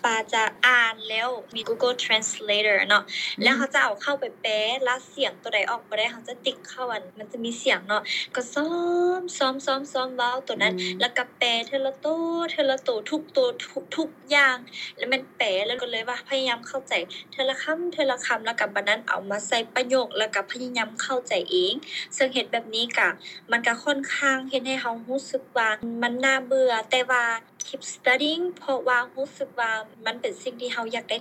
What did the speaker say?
ວ່າຈະອ່ານແລ້ວ ມີ Google Translator ເນາະ ແລ້ວເຮົາຈະເອົາເຂົ້າໄປແປ ລະສຽງໂຕໃດອອກບໍ່ໄດ້ ເຮົາຈະຕິກເຂົ້າ ອັນ ມັນຈະມີສຽງເນາະ ກໍຊ້ອມ ຊ້ອມ ຊ້ອມ ຊ້ອມເວົ້າໂຕນັ້ນ ແລ້ວກໍແປເທື່ອລະໂຕ ເທື່ອລະໂຕ ທຸກໂຕ ທຸກ ທຸກຢ່າງ ແລ້ວແມ່ນແປ ແລ້ວກໍເລີຍວ່າພະຍາຍາມເຂົ້າໃຈເທື່ອລະຄຳ ເທື່ອລະຄຳ ແລ້ວກໍບາດນັ້ນເອົາມາໃສ່ປະໂຫຍກ ແລ້ວກໍພະຍາຍາມເຂົ້າໃຈເອງ ເຊິ່ງເຮັດແບບນີ້ກະ ມັນກະຂ້ອນຂ້າງເຮັດໃຫ້ເຮົາຮູ້ສຶກວ່າມັນໜ້າເບື່ອ ແຕ່ວ່າ keep studying ເພາະວ່າຮູ້ສຶກວ່າມັນເປັນສິ່ງທີ່ເຮົາຢາກໄດ້.